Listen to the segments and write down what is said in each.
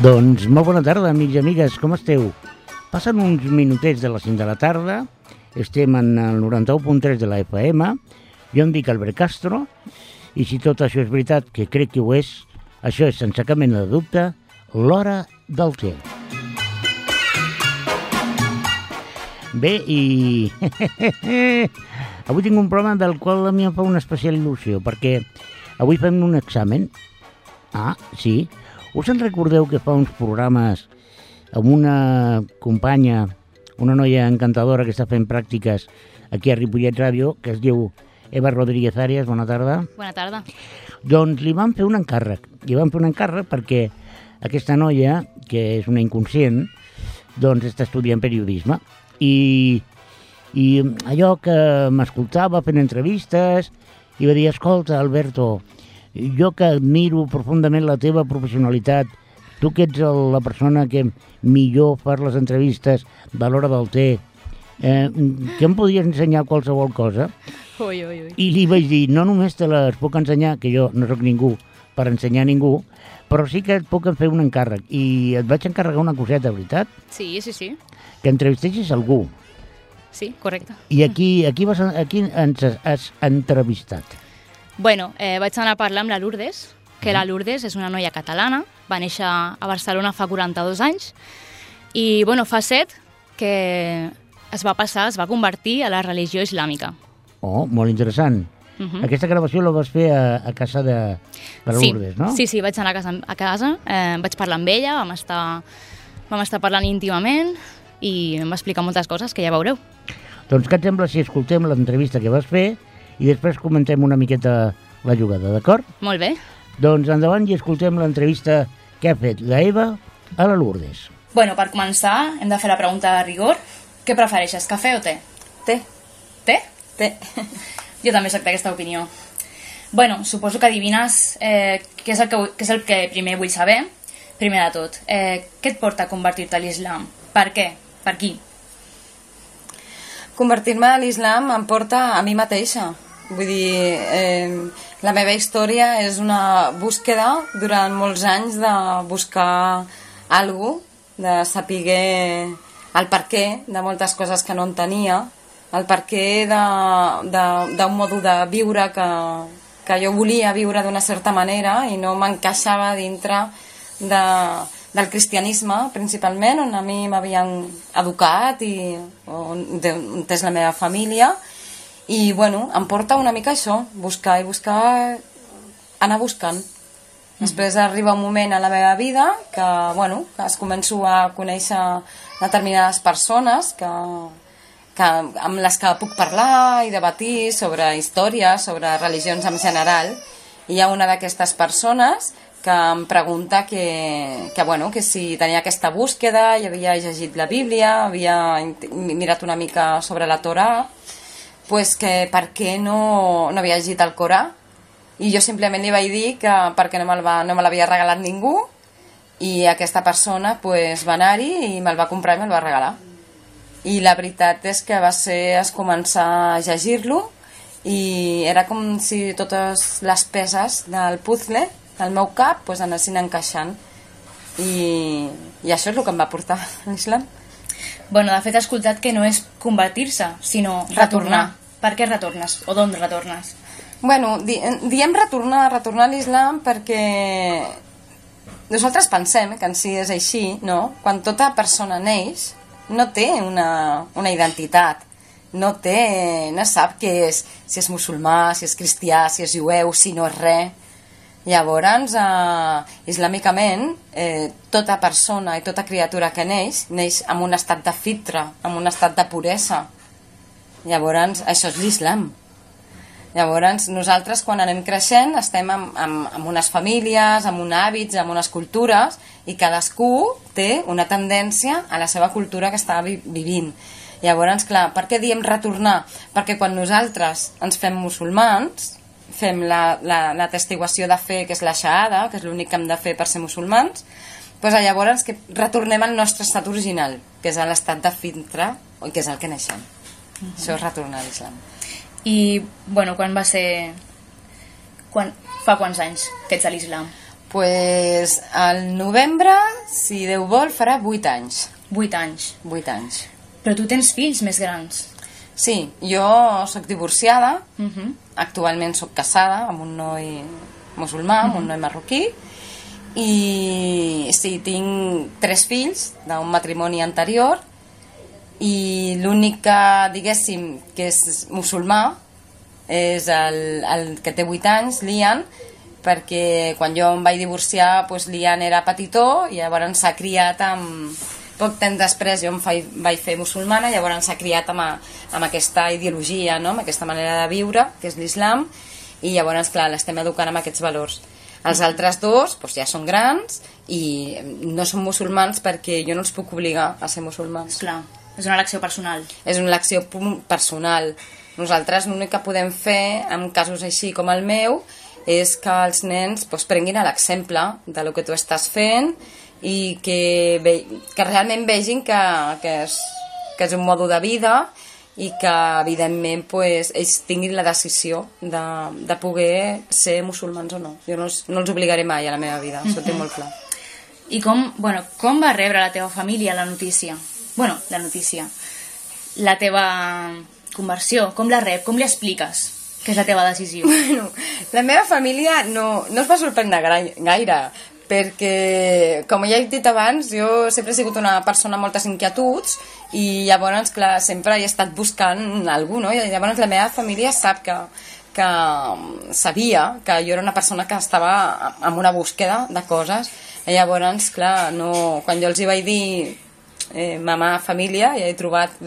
Doncs molt bona tarda, amics i amigues, com esteu? Passen uns minutets de les 5 de la tarda, estem en el 91.3 de la FM, jo em dic Albert Castro, i si tot això és veritat, que crec que ho és, això és sense cap mena de dubte, l'Hora del Té. Bé, i avui tinc un programa del qual a mi em fa una especial il·lusió, perquè avui fem un examen. Ah, sí. Us en recordeu que fa uns programes amb una companya, una noia encantadora que està fent pràctiques aquí a Ripollet Ràdio, que es diu Eva Rodríguez Arias, bona tarda. Bona tarda. Doncs li vam fer un encàrrec. Li vam fer un encàrrec perquè aquesta noia, que és una inconscient, doncs està estudiant periodisme. I allò que m'escoltava fent entrevistes i va dir, escolta, Alberto, jo que admiro profundament la teva professionalitat, tu que ets la persona que millor fas les entrevistes de l'Hora del Té, que em podries ensenyar qualsevol cosa? Ui. I li vaig dir, no només te les puc ensenyar, que jo no sóc ningú per ensenyar a ningú, però sí que et puc fer un encàrrec. I et vaig encarregar una coseta, veritat? Sí. Que entrevistessis algú. Sí, correcte. I aquí ens has entrevistat? Bueno, vaig anar a parlar amb la Lourdes, que la Lourdes és una noia catalana, va néixer a Barcelona fa 42 anys, i bueno, fa 7 que es va convertir a la religió islàmica. Oh, molt interessant. Aquesta gravació la vas fer a casa de la Lourdes, no? Sí, vaig anar a casa, vaig parlar amb ella, vam estar parlant íntimament i em va explicar moltes coses que ja veureu. Doncs què et sembla si escoltem l'entrevista que vas fer i després comentem una miqueta la jugada, d'acord? Molt bé. Doncs endavant i escoltem l'entrevista que ha fet la Eva a la Lourdes. Bueno, per començar, hem de fer la pregunta de rigor. Què prefereixes, cafè o te? Té. Té? Té. Jo també soc d'aquesta opinió. Bueno, suposo que adivines què és el que primer vull saber. Primer de tot, què et porta a convertir-te a l'islam? Per què? Per qui? Convertir-me a l'islam em porta a mi mateixa. Vull dir, la meva història és una búsqueda durant molts anys de buscar alguna cosa, de saber el perquè de moltes coses que no entenia, el perquè d'un modo de viure que jo volia viure d'una certa manera i no m'encaixava dintre del cristianisme, principalment, on a mi m'havien educat i on és la meva família. I, bueno, em porta una mica això, buscar, anar buscant. Després arriba un moment a la meva vida que, bueno, que es començo a conèixer determinades persones amb les que puc parlar i debatir sobre història, sobre religions en general. I hi ha una d'aquestes persones que em pregunta que si tenia aquesta búsqueda, i havia llegit la Bíblia, havia mirat una mica sobre la Torà, pues que per què no havia llegit el Corà. I jo simplement li vaig dir que perquè no me l'havia regalat ningú, i aquesta persona pues, va anar-hi i me'l va comprar i me'l va regalar. I la veritat és que es començar a llegir-lo i era com si totes les peces del puzzle del meu cap pues, anessin encaixant. I això és el que em va portar a l'islam. Bueno, de fet he escoltat que no és convertir-se, sinó retornar. Per què retornes? O d'on retornes? Bueno, diem retornar a l'islam perquè nosaltres pensem que en si és així, no? Quan tota persona neix no té una identitat, no sap què és, si és musulmà, si és cristià, si és jueu, si no és res. Llavors, islàmicament, tota persona i tota criatura que neix en un estat de fitra, en un estat de puresa. Llavors, això és l'islam. Llavors, nosaltres quan anem creixent estem en unes famílies, en uns hàbits, en unes cultures, i cadascú té una tendència a la seva cultura que està vivint. Llavors, clar, per què diem retornar? Perquè quan nosaltres ens fem musulmans, fem la testiguació de fe, que és la shahada, que és l'únic que hem de fer per ser musulmans, doncs llavors que retornem al nostre estat original, que és l'estat de fitra, que és el que neixem. Això és retornar a l'islam. I, bueno, quan va ser... Fa quants anys que ets a l'islam? Pues al novembre, si Déu vol, farà 8 anys. 8 anys. 8 anys. Però tu tens fills més grans. Sí, jo soc divorciada, actualment soc casada amb un noi musulmà, amb un noi marroquí, i sí, tinc 3 fills d'un matrimoni anterior, i l'únic que, diguéssim, que és musulmà és el que té 8 anys, l'Ian, perquè quan jo em vaig divorciar, doncs l'Ian era petitó i llavors s'ha criat amb... Poc temps després jo em vaig fer musulmana, llavors s'ha criat amb aquesta ideologia, no? Amb aquesta manera de viure, que és l'islam, i llavors, clar, l'estem educant amb aquests valors. Els altres dos doncs, ja són grans i no són musulmans perquè jo no els puc obligar a ser musulmans. Clar, és una elecció personal. És una elecció personal. Nosaltres l'únic que podem fer en casos així com el meu és que els nens doncs, prenguin l'exemple del que tu estàs fent i que realment vegin que és un mode de vida i que evidentment doncs, ells tinguin la decisió de poder ser musulmans o no. Jo no els obligaré mai a la meva vida, això ho tinc molt clar. I com va rebre la teva família la notícia? La notícia. La teva conversió, com la rep? Com li expliques que és la teva decisió? La meva família no es va sorprendre gaire, perquè, com ja he dit abans, jo sempre he sigut una persona amb moltes inquietuds i llavors, clar, sempre he estat buscant algú, no? I llavors la meva família sap que sabia que jo era una persona que estava en una búsqueda de coses i llavors, clar, quan jo els hi vaig dir mamà, família, ja he trobat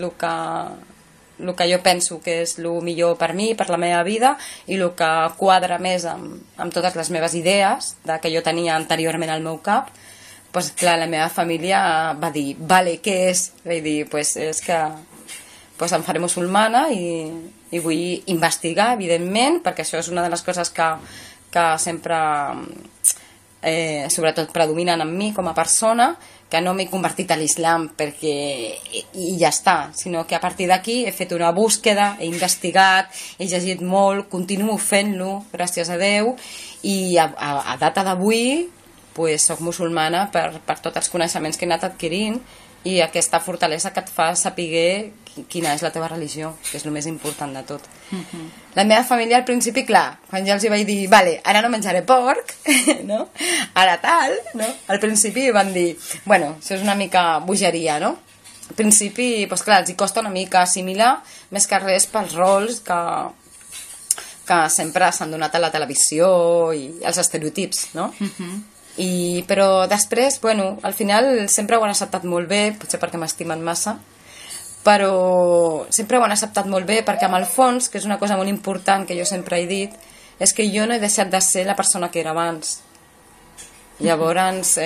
el que jo penso que és el millor per mi, per la meva vida, i el que quadra més amb totes les meves idees que jo tenia anteriorment al meu cap, doncs clar, la meva família va dir, vale, què és? Vaig dir, és que em faré musulmana i vull investigar, evidentment, perquè això és una de les coses que sempre sobretot predominen en mi com a persona, que no m'he convertit a l'islam i ja està, sinó que a partir d'aquí he fet una búsqueda, he investigat, he llegit molt, continuo fent-lo, gràcies a Déu, i a data d'avui soc musulmana per tots els coneixements que he anat adquirint i aquesta fortalesa que et fa saber quina és la teva religió, que és el més important de tot. La meva família al principi, clar, quan ja els hi vaig dir, vale, ara no menjaré porc, no? Ara tal, no? Al principi van dir, bueno, això és una mica bogeria, no? Al principi, doncs clar, els hi costa una mica assimilar, més que res pels rols que sempre s'han donat a la televisió i els estereotips, no? Però després, bueno, al final sempre ho han acceptat molt bé, potser perquè m'estimen massa, però sempre ho han acceptat molt bé perquè amb el fons, que és una cosa molt important que jo sempre he dit, és que jo no he deixat de ser la persona que era abans. Llavors,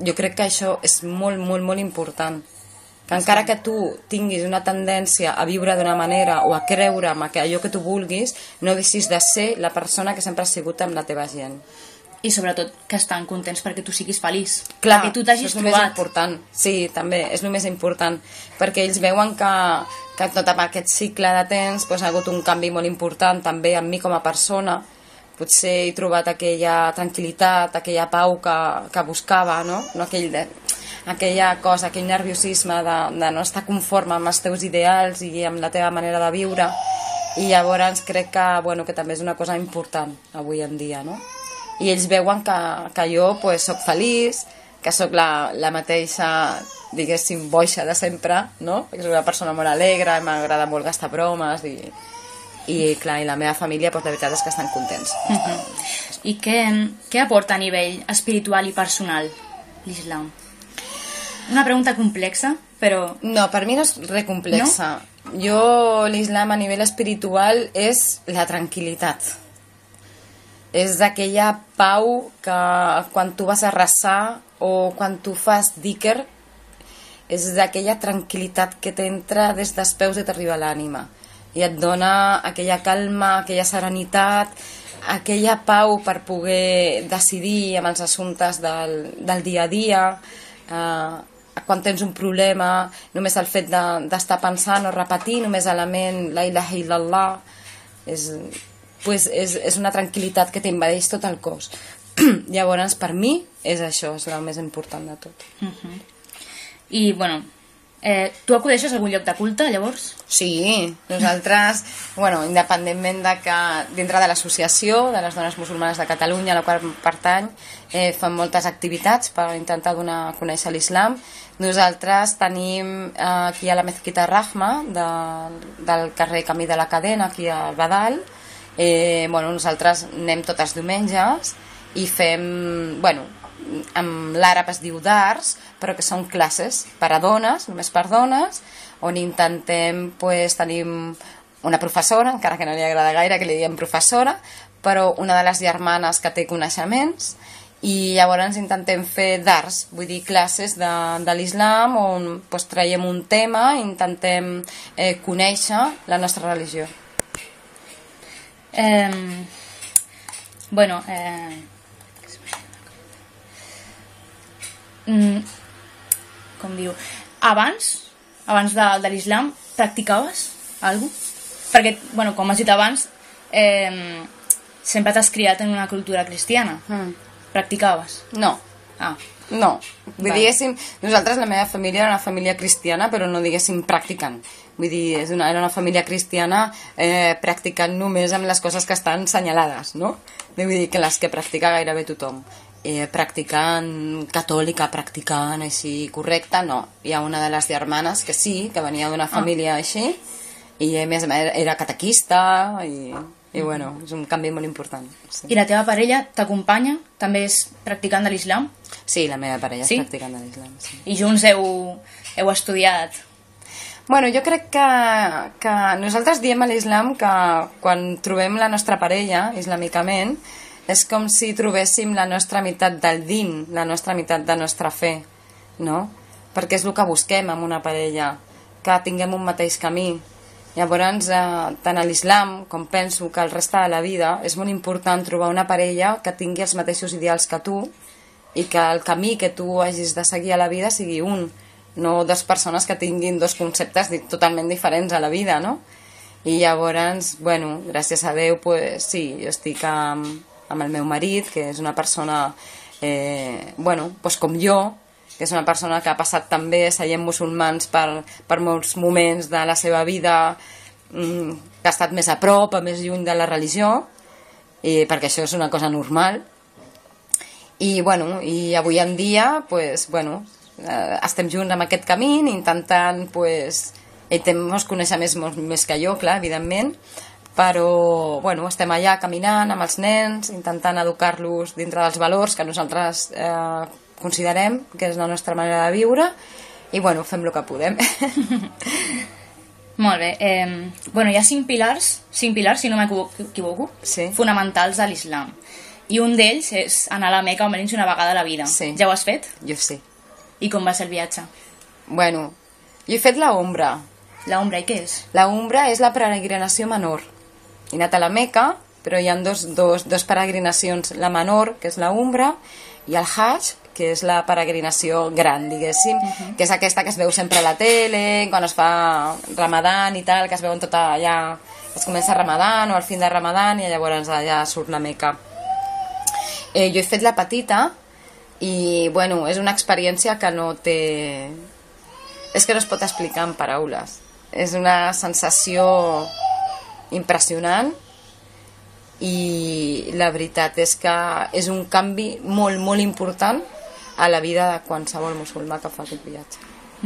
jo crec que això és molt, molt, molt important. Que encara que tu tinguis una tendència a viure d'una manera o a creure en allò que tu vulguis, no deixis de ser la persona que sempre has sigut amb la teva gent. I sobretot que estan contents perquè tu siguis feliç. Clar, perquè tu t'hagis trobat. Més important. Sí, també, és el més important. Perquè ells veuen que tot aquest cicle de temps ha hagut un canvi molt important també en mi com a persona. Potser he trobat aquella tranquil·litat, aquella pau que buscava, no? Aquella cosa, aquell nerviosisme de no estar conforme amb els teus ideals i amb la teva manera de viure. I llavors crec que també és una cosa important avui en dia, no? I ells veuen que jo soc feliç, que sóc la mateixa, diguéssim, boixa de sempre, no? Perquè soc una persona molt alegre, m'agrada molt gastar bromes i clar, i la meva família, la veritat és que estan contents. I què aporta a nivell espiritual i personal l'islam? Una pregunta complexa, però... No, per mi no és res complexa. No? Jo, l'islam a nivell espiritual és la tranquil·litat. És aquella pau que quan tu vas a resar o quan tu fas dhikr és aquella tranquil·litat que t'entra des dels peus i t'arriba a l'ànima i et dona aquella calma, aquella serenitat, aquella pau per poder decidir amb els assumptes del dia a dia, quan tens un problema, només el fet d'estar pensant o repetir només a la ment la ilaha illallah és una tranquil·litat que t'invadeix tot el cos. Llavors, per mi, és això, és el més important de tot. I, bueno, tu acudeixes a algun lloc de culte, llavors? Sí, nosaltres, bueno, independentment de que dintre de l'associació de les dones musulmanes de Catalunya, a la qual pertany, fan moltes activitats per intentar donar a conèixer l'islam. Nosaltres tenim aquí a la Mezquita Rahma del carrer Camí de la Cadena, aquí al Badal. Bueno, nosaltres anem tots els diumenges i fem, bueno, amb l'àrab es diu dars, però que són classes per a dones, només per dones, on intentem, pues, tenim una professora, encara que no li agrada gaire que li diguem professora, però una de les germanes que té coneixements, i llavors intentem fer dars, vull dir classes de l'islam on, pues, traiem un tema i intentem conèixer la nostra religió. Bueno, com diu, abans de l'islam practicaves alguna cosa? Perquè, bueno, com has dit abans, sempre t'has criat en una cultura cristiana. Practicaves? No. No, diguéssim, nosaltres, la meva família era una família cristiana, però no diguéssim practicant. Vull dir, era una família cristiana practicant només amb les coses que estan senyalades, no? Vull dir que les que practica gairebé tothom. Practicant catòlica, practicant així correcta, no. Hi ha una de les germanes que sí, que venia d'una família així, i a més era catequista, i bueno, és un canvi molt important. Sí. I la teva parella t'acompanya? També és practicant de l'islam? Sí, la meva parella és practicant de l'islam. Sí. I junts heu estudiat? Bueno, jo crec que nosaltres diem a l'islam que quan trobem la nostra parella, islamicament, és com si trobéssim la nostra meitat del din, la nostra meitat de nostra fe, no? Perquè és el que busquem amb una parella, que tinguem un mateix camí. Llavors, tant a l'islam com penso que el resta de la vida és molt important trobar una parella que tingui els mateixos ideals que tu i que el camí que tu hagis de seguir a la vida sigui un, no dues persones que tinguin dos conceptes totalment diferents a la vida, no? I llavors, bueno, gràcies a Déu, pues, sí, jo estic amb el meu marit, que és una persona, bueno, pues com jo, que és una persona que ha passat també seient musulmans per molts moments de la seva vida, que ha estat més a prop, més lluny de la religió, perquè això és una cosa normal. I, bueno, i avui en dia, pues, bueno, estem junts amb aquest camí, intentant, pues, ell ens conèixer més que jo, clar, evidentment, però, bueno, estem allà caminant amb els nens, intentant educar-los dintre dels valors que nosaltres considerem que és la nostra manera de viure, i, bueno, fem el que podem. Molt bé. Bueno, hi ha 5 pilars, si no m'equivoco, sí, fonamentals a l'islam. I un d'ells és anar a la Meca almenys una vegada a la vida. Sí. Ja ho has fet? Jo sí. I com va ser el viatge? Bueno, jo he fet la Umra. La Umra, i què és? La Umra és la peregrinació menor. He anat a la Meca, però hi ha dos peregrinacions. La menor, que és la Umra, i el Hajj, que és la peregrinació gran, diguéssim, que és aquesta que es veu sempre a la tele, quan es fa Ramadan i tal, que es veuen tot allà, es comença Ramadan o al fin de Ramadan i llavors allà surt la Meca. Jo he fet la petita i, bueno, és una experiència que no té... És que no es pot explicar en paraules. És una sensació impressionant i la veritat és que és un canvi molt, molt important a la vida de qualsevol musulmà que fa aquest viatge.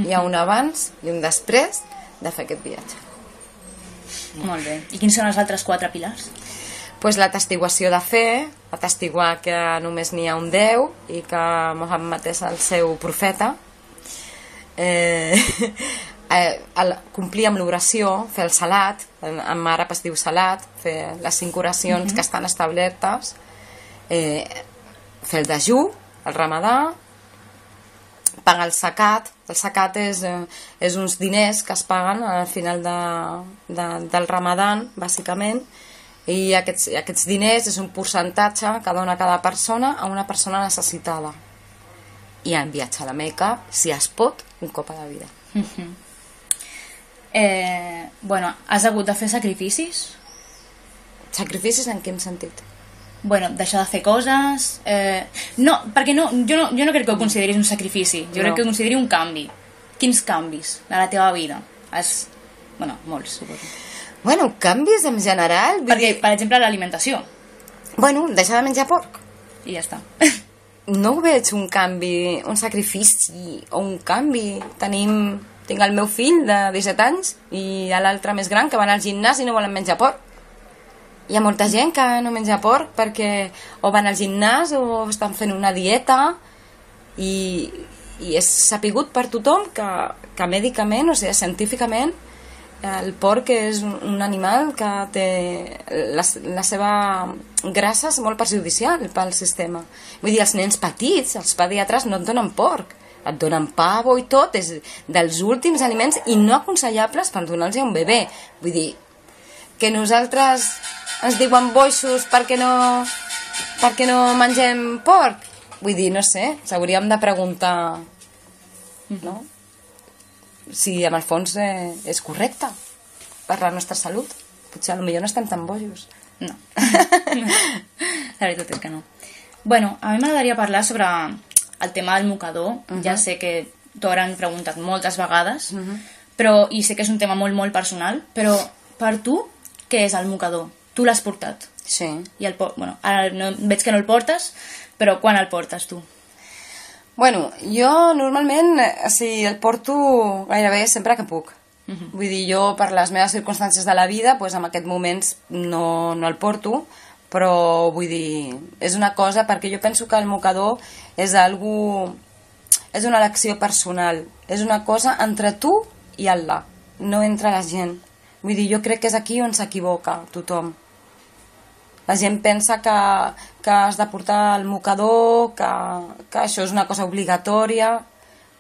Hi ha un abans i un després de fer aquest viatge. Molt bé. I quins són els altres 4 pilars? Pues la testiguació de fe, atestiguar que només n'hi ha un Déu i que Mohammed és el seu profeta, complir amb l'oració, fer el salat, en àrab es diu salat, fer les 5 oracions que estan establertes, fer el dejú, el ramadà, pagar el zakat. El zakat és uns diners que es paguen al final del ramadan, bàsicament, i aquests diners és un percentatge que dona cada persona a una persona necessitada. I en viatge a la Meca, si es pot, un cop a la vida. Bueno, has hagut de fer sacrificis? Sacrificis en quin sentit? Bueno, deixar de fer coses... No, perquè jo no crec que ho consideris un sacrifici, jo crec que ho consideri un canvi. Quins canvis de la teva vida? Bueno, molts, suposo. Bueno, canvis en general... Perquè, per exemple, l'alimentació. Bueno, deixar de menjar porc. I ja està. No ho veig un canvi, un sacrifici o un canvi. Tinc el meu fill de 17 anys i l'altre més gran que van al gimnàs i no volen menjar porc. Hi ha molta gent que no menja porc perquè o van al gimnàs o estan fent una dieta i és sapigut per tothom que mèdicament, o sigui, científicament, el porc és un animal que té la seva grassa és molt perjudicial pel sistema. Vull dir, els nens petits, els pediatres no et donen porc, et donen pavo i tot, és dels últims aliments i no aconsellables per donar-los a un bebè. Vull dir, que nosaltres ens diuen boixos perquè no mengem porc. Vull dir, no sé, s'hauríem de preguntar, no? Si en el fons és correcte per la nostra salut. Potser potser no estem tan bojos. No. La veritat és que no. Bueno, a mi m'agradaria parlar sobre el tema del mocador. Ja sé que t'ho hauran preguntat moltes vegades, però, i sé que és un tema molt, molt personal, però per tu, què és el mocador? Tu l'has portat? Sí. I bueno, ara veig que no el portes, però quan el portes tu? Bueno, jo normalment el porto gairebé sempre que puc. Vull dir, jo per les meves circumstàncies de la vida, doncs en aquests moments no el porto, però vull dir, és una cosa, perquè jo penso que el mocador és una elecció personal, és una cosa entre tu i Allah, no entre la gent. Vull dir, jo crec que és aquí on s'equivoca tothom. La gent pensa que has de portar el mocador, que això és una cosa obligatòria.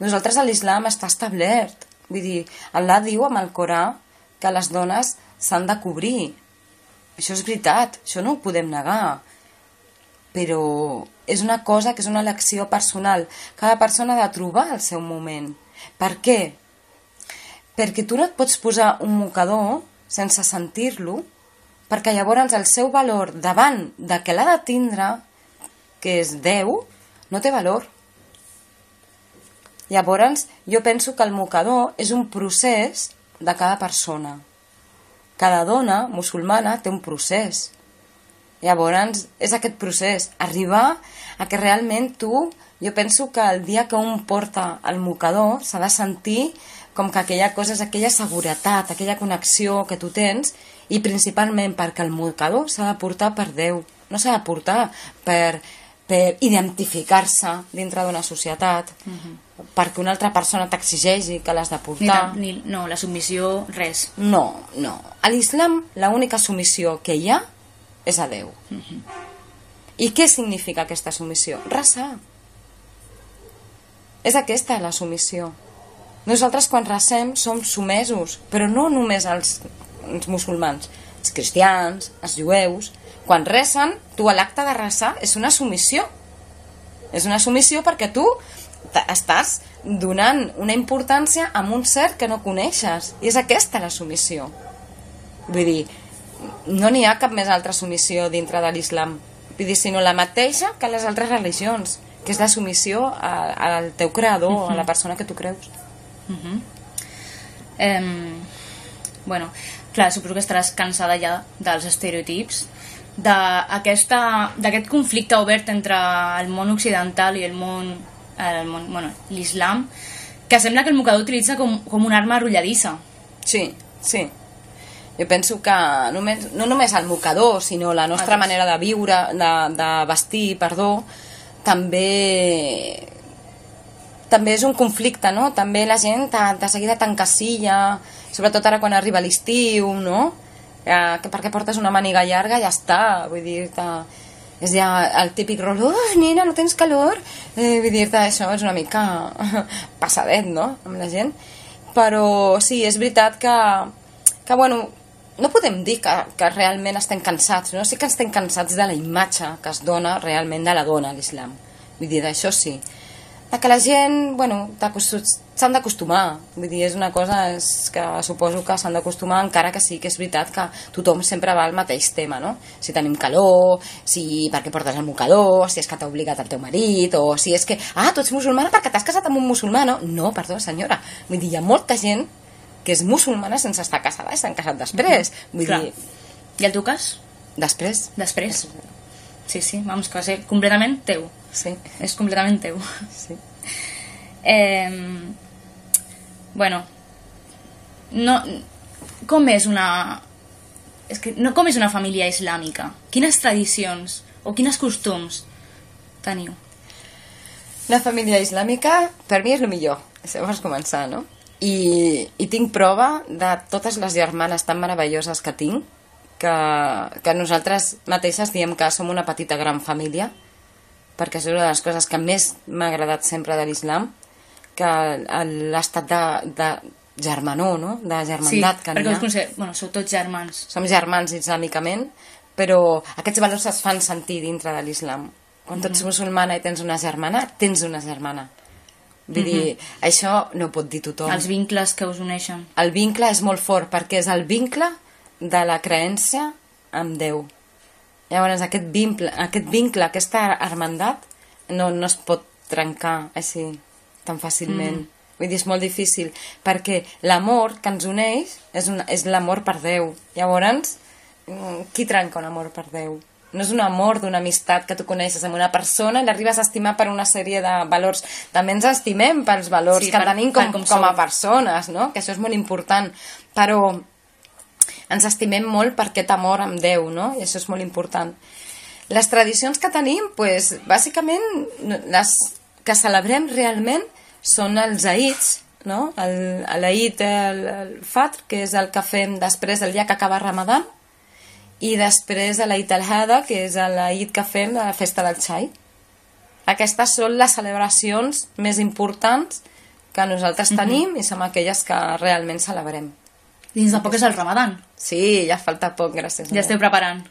Nosaltres a l'islam està establert. Vull dir, Allah diu amb el Corà que les dones s'han de cobrir. Això és veritat, això no ho podem negar. Però és una cosa que és una elecció personal. Cada persona ha de trobar el seu moment. Per què? Perquè tu no et pots posar un mocador sense sentir-lo, perquè llavors el seu valor davant de que l'ha de tindre, que és Déu, no té valor. Llavors jo penso que el mocador és un procés de cada persona. Cada dona musulmana té un procés. Llavors és aquest procés, arribar a que realment tu, jo penso que el dia que un porta el mocador s'ha de sentir com que aquella cosa és aquella seguretat, aquella connexió que tu tens, i principalment perquè el mocador s'ha de portar per Déu, no s'ha de portar per identificar-se dintre d'una societat, perquè una altra persona t'exigeixi que l'has de portar. No, la submissió, res. No. A l'islam l'única submissió que hi ha és a Déu. I què significa aquesta submissió? Resar. És aquesta la submissió. Nosaltres quan resem som sumesos, però no només els musulmans, els cristians, els jueus. Quan resen, tu a l'acte de resar és una submissió. És una submissió perquè tu estàs donant una importància a un ser que no coneixes. I és aquesta la submissió. Vull dir, no n'hi ha cap més altra submissió dintre de l'islam. Vull dir, sinó la mateixa que les altres religions, que és la submissió al teu creador, a la persona que tu creus. Bueno, clar, suposo que estaràs cansada ja dels estereotips, d'aquest conflicte obert entre el món occidental i l'islam, que sembla que el mocador utilitza com una arma arrolladissa. Sí. Jo penso que no només el mocador, sinó la nostra manera de viure, de vestir, també és un conflicte, no? També la gent de seguida t'encasilla, sobretot ara quan arriba l'estiu, no? Que perquè portes una màniga llarga ja està, vull dir-te, és ja el típic rol, nena, no tens calor? Vull dir-te, això és una mica passadet, no?, amb la gent. Però sí, és veritat que bueno, no podem dir que realment estem cansats, no? Sí que estem cansats de la imatge que es dona realment de la dona a l'islam. Vull dir, d'això sí. Que la gent, bueno, s'han d'acostumar, vull dir, és una cosa que suposo que s'han d'acostumar, encara que sí que és veritat que tothom sempre va al mateix tema, no? Si tenim calor, si perquè portes el mocador, si és que t'ha obligat el teu marit, o si és que, tu ets musulmana perquè t'has casat amb un musulmà, no? No, perdó, senyora, vull dir, hi ha molta gent que és musulmana sense estar casada i s'han casat després, vull dir... I el teu cas? Després. Després. Sí, vamos, que va ser completament teu. Sí. És completament teu. Sí. Bueno, no, com és una... És que no, com és una família islàmica? Quines tradicions o quins costums teniu? La família islàmica, per mi, és el millor. Això vas començar, no? I tinc prova de totes les germanes tan meravelloses que tinc, que nosaltres mateixes diem que som una petita gran família, perquè és una de les coses que més m'ha agradat sempre de l'islam, que l'estat de germanor, no? De germandat que n'hi ha. Sí, perquè sou tots germans. Som germans islàmicament, però aquests valors es fan sentir dintre de l'islam. Quan tu ets musulmana i tens una germana, tens una germana. Vull dir, això no ho pot dir tothom. Els vincles que us uneixen. El vincle és molt fort, perquè és el vincle de la creença amb Déu. Llavors, aquest vincle, aquesta hermandat, no es pot trencar així tan fàcilment. Vull dir, és molt difícil, perquè l'amor que ens uneix és l'amor per Déu. Llavors, qui trenca un amor per Déu? No és un amor d'una amistat que tu coneixes amb una persona i l'arribes a estimar per una sèrie de valors. També ens estimem pels valors que tenim com a persones, no? Que això és molt important. Però ens estimem molt per aquest amor amb Déu, no? I això és molt important. Les tradicions que tenim, doncs, bàsicament, les que celebrem realment són els Eids, no? L'Eid, el Fitr, que és el que fem després del dia que acaba Ramadan, i després l'Eid al-Hada, que és l'Eid que fem de la festa del xai. Aquestes són les celebracions més importants que nosaltres tenim i som aquelles que realment celebrem. Dins de poc és el Ramadan. Sí, ja falta poc, gràcies. Ja esteu preparant.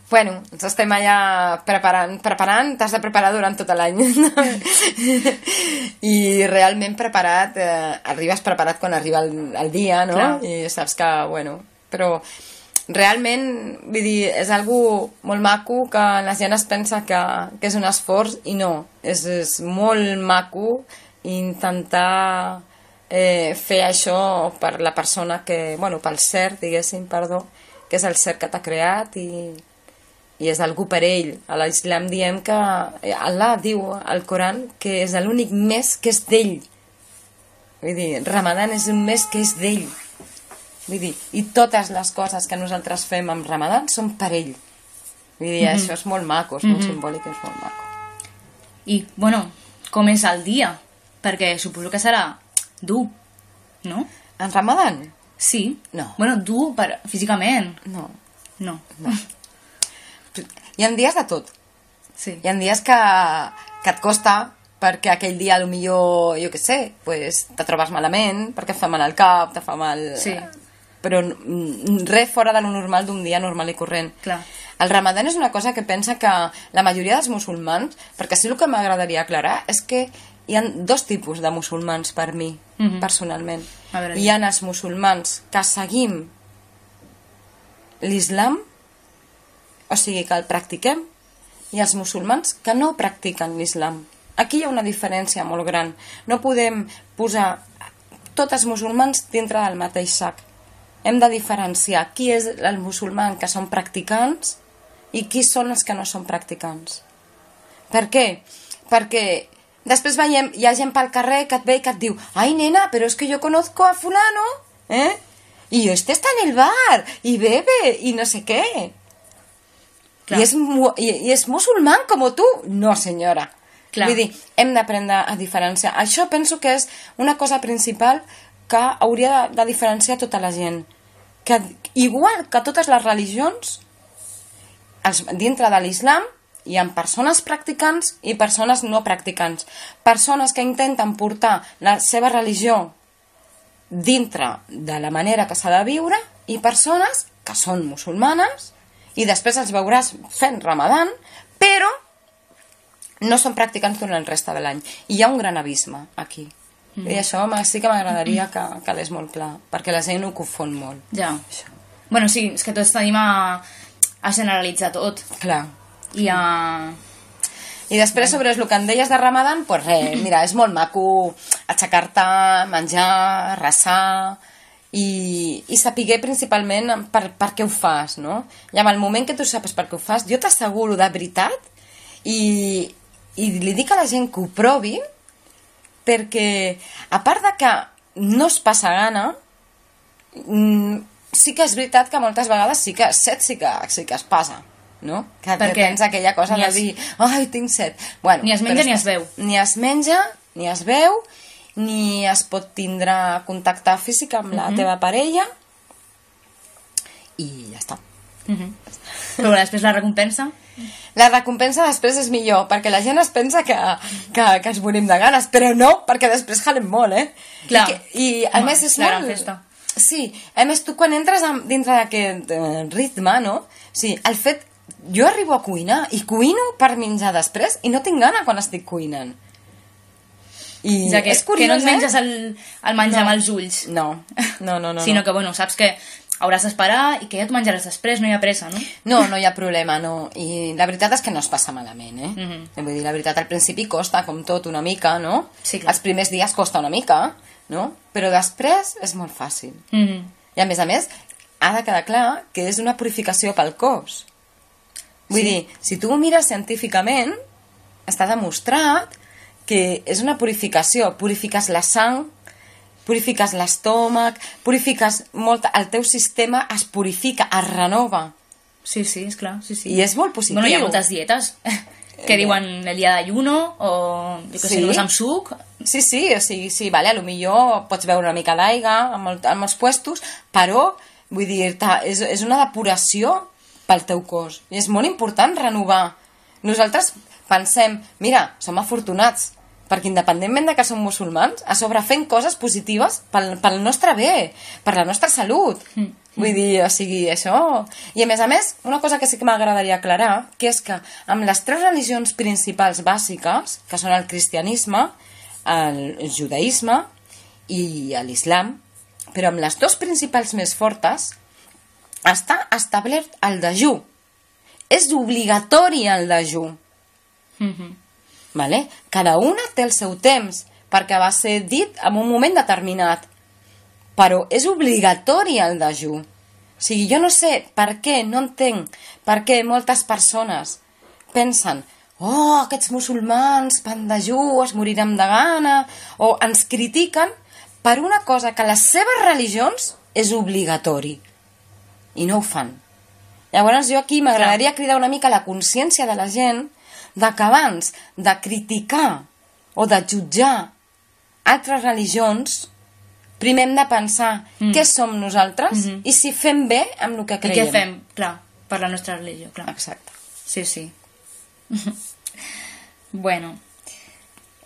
Bueno, ens estem allà preparant, t'has de preparar durant tot l'any. I realment preparat, arribes preparat quan arriba el dia, no? Clar. I saps que, bueno, però realment, vull dir, és algo molt maco que la gent es pensa que és un esforç i no, és molt maco intentar fer això per la persona que, bueno, pel ser, diguéssim, perdó, que és el ser que t'ha creat i és algú per ell. A l'Islam diem que Allah diu al Coran que és l'únic mes que és d'ell. Vull dir, Ramadan és un mes que és d'ell. Vull dir, i totes les coses que nosaltres fem amb Ramadan són per ell. Vull dir, això és molt maco, és molt simbòlic, és molt maco. I, bueno, com és el dia? Perquè suposo que serà dur, no? En Ramadan? Sí. No. Bueno, dur físicament. No. No. Hi ha dies de tot. Sí. Hi ha dies que et costa perquè aquell dia potser, jo què sé, pues, te trobes malament, perquè et fa mal al cap, te fa mal... Sí. Però res fora de lo normal d'un dia normal i corrent. Clar. El Ramadan és una cosa que pensa que la majoria dels musulmans, perquè sí el que m'agradaria aclarar és que hi ha dos tipus de musulmans per mi, personalment. Hi ha els musulmans que seguim l'islam, o sigui que el practiquem, i els musulmans que no practiquen l'islam. Aquí hi ha una diferència molt gran. No podem posar tots els musulmans dintre del mateix sac. Hem de diferenciar qui és el musulmà que són practicants i qui són els que no són practicants. Per què? Perquè després veiem, hi ha gent pel carrer que et ve i que et diu «Ai, nena, però és que jo conozco a fulano, y este está en el bar, y bebe, y no sé qué». I és musulmán com tu? No, senyora. Clar. Vull dir, hem d'aprendre a diferenciar. Això penso que és una cosa principal que hauria de diferenciar tota la gent. Que, igual que totes les religions, dintre de l'islam hi ha persones practicants i persones no practicants. Persones que intenten portar la seva religió dintre de la manera que s'ha de viure i persones que són musulmanes i després els veuràs fent Ramadan, però no són practicants durant el resta de l'any. I hi ha un gran abisme aquí. I això sí que m'agradaria que quedés molt clar, perquè la gent ho confon molt. Ja. Bueno, sí, és que tots tenim a generalitzar tot. Clar. I després, sobre el que em deies de Ramadan, doncs res, mira, és molt maco aixecar-te, menjar, resar i saber principalment per què ho fas, no? I en el moment que tu saps per què ho fas, jo t'asseguro de veritat i li dic a la gent que ho provi, perquè a part de que no es passa gana, sí que és veritat que moltes vegades sí que es passa, no? Que tens aquella cosa de dir, ai, tinc set. Bueno, ni es menja ni es veu. Ni es menja, ni es veu, ni es pot tindre contacte físic amb la teva parella i ja està. Però després la recompensa? La recompensa després és millor, perquè la gent es pensa que ens morim de ganes, però no, perquè després jalem molt, Clar. I a més és la molt... gran festa. Sí, a més tu quan entres dintre d'aquest ritme, no? Sí, el fet... Jo arribo a cuinar i cuino per menjar després i no tinc gana quan estic cuinant. I és curiós, que no et menges el menjar amb els ulls. No. Sinó que, bueno, saps que hauràs d'esperar i que ja t'ho menjaràs després, no hi ha pressa, no? No hi ha problema, no. I la veritat és que no es passa malament, Vull dir, la veritat, al principi costa, com tot, una mica, no? Sí, clar. Els primers dies costa una mica, no? Però després és molt fàcil. I a més, ha de quedar clar que és una purificació pel cos. Vull dir, si tu ho mires científicament, està demostrat que és una purificació. Purifiques la sang, purifiques l'estómac, purifiques molt... El teu sistema es purifica, es renova. Sí, és clar, sí. I és molt positiu. Bueno, hi ha moltes dietes que diuen el dia d'ayuno o, jo què sé, només amb suc. Sí, o sigui, sí, vale, potser pots beure una mica d'aigua en molts puestos, però, vull dir, és una depuració pel teu cos. I és molt important renovar. Nosaltres pensem, mira, som afortunats, perquè independentment de que som musulmans, a sobre fem coses positives pel nostre bé, per la nostra salut. Vull dir, o sigui, això... I a més, una cosa que sí que m'agradaria aclarar, que és que amb les 3 religions principals bàsiques, que són el cristianisme, el judaïsme i l'islam, però amb les 2 principals més fortes, està establert el dejú. És obligatori el dejú. Vale? Cada una té el seu temps, perquè va ser dit en un moment determinat. Però és obligatori el dejú. O sigui, jo no sé per què, no entenc per què moltes persones pensen aquests musulmans fan dejú, es moriran de gana, o ens critiquen per una cosa que a les seves religions és obligatori. I no ho fan. Llavors jo aquí m'agradaria cridar una mica la consciència de la gent de que abans de criticar o de jutjar altres religions, primer hem de pensar què som nosaltres i si fem bé amb el que creiem. I què fem, clar, per la nostra religió, clar. Exacte. Sí. Bueno,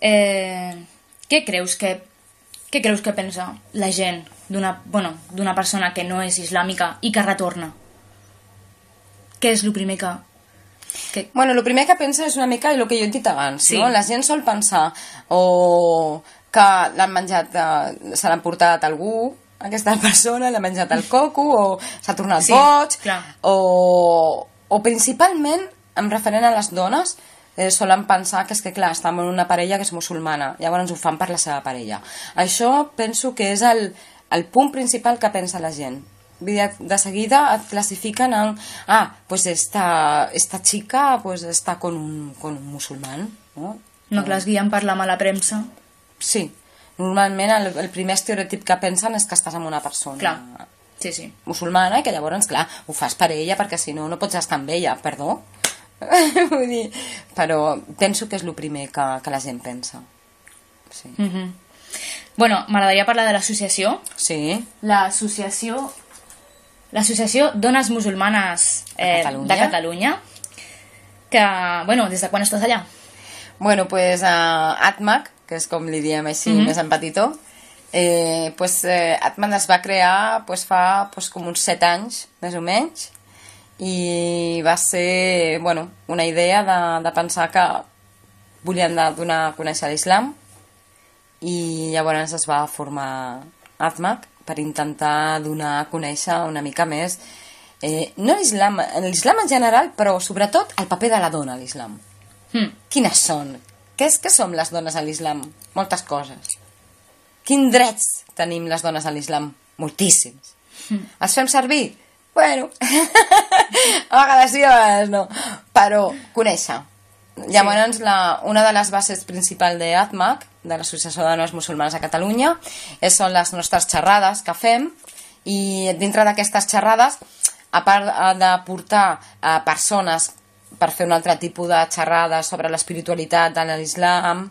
què creus que pensa la gent d'una persona que no és islàmica i que retorna? Què és el primer que... Bueno, el primer que pensa és una mica el que jo he dit abans, no? La gent sol pensar o que l'han menjat, se l'han portat algú, aquesta persona, l'ha menjat el coco, o s'ha tornat boig, o principalment, en referent a les dones, solen pensar que és que, clar, estan en una parella que és musulmana, llavors ho fan per la seva parella. Això penso que és el punt principal que pensa la gent. De seguida et clasifiquen en pues esta chica pues está con un musulmán, ¿no? No, que les guien per la mala premsa. Sí, normalment el primer estereotip que pensen és que estàs amb una persona musulmana i que llavors, clar, ho fas per ella perquè si no, no pots estar amb ella, perdó. Vull dir, però penso que és el primer que la gent pensa. Sí. Bueno, m'agradaria parlar de l'associació. Sí. L'associació Dones Musulmanes de Catalunya, que, bueno, des de quan estàs allà? Bueno, pues ATMAC, que és com li diem així més en petitó, ATMAC es va crear fa com uns 7 anys, més o menys, i va ser, bueno, una idea de pensar que volien donar a conèixer l'islam i llavors es va formar ATMAC per intentar donar a conèixer una mica més no l'islam en general, però sobretot el paper de la dona a l'islam. Quines són? Què som les dones a l'islam? Moltes coses. Quins drets tenim les dones a l'islam? Moltíssims. Els fem servir? Bueno, a vegades sí, a vegades no. Però conèixer. Llavors, una de les bases principals d'ATMAC, de l'Associació de Dones Musulmanes a Catalunya, són les nostres xerrades que fem, i dintre d'aquestes xerrades, a part de portar persones per fer un altre tipus de xerrades sobre l'espiritualitat de l'islam,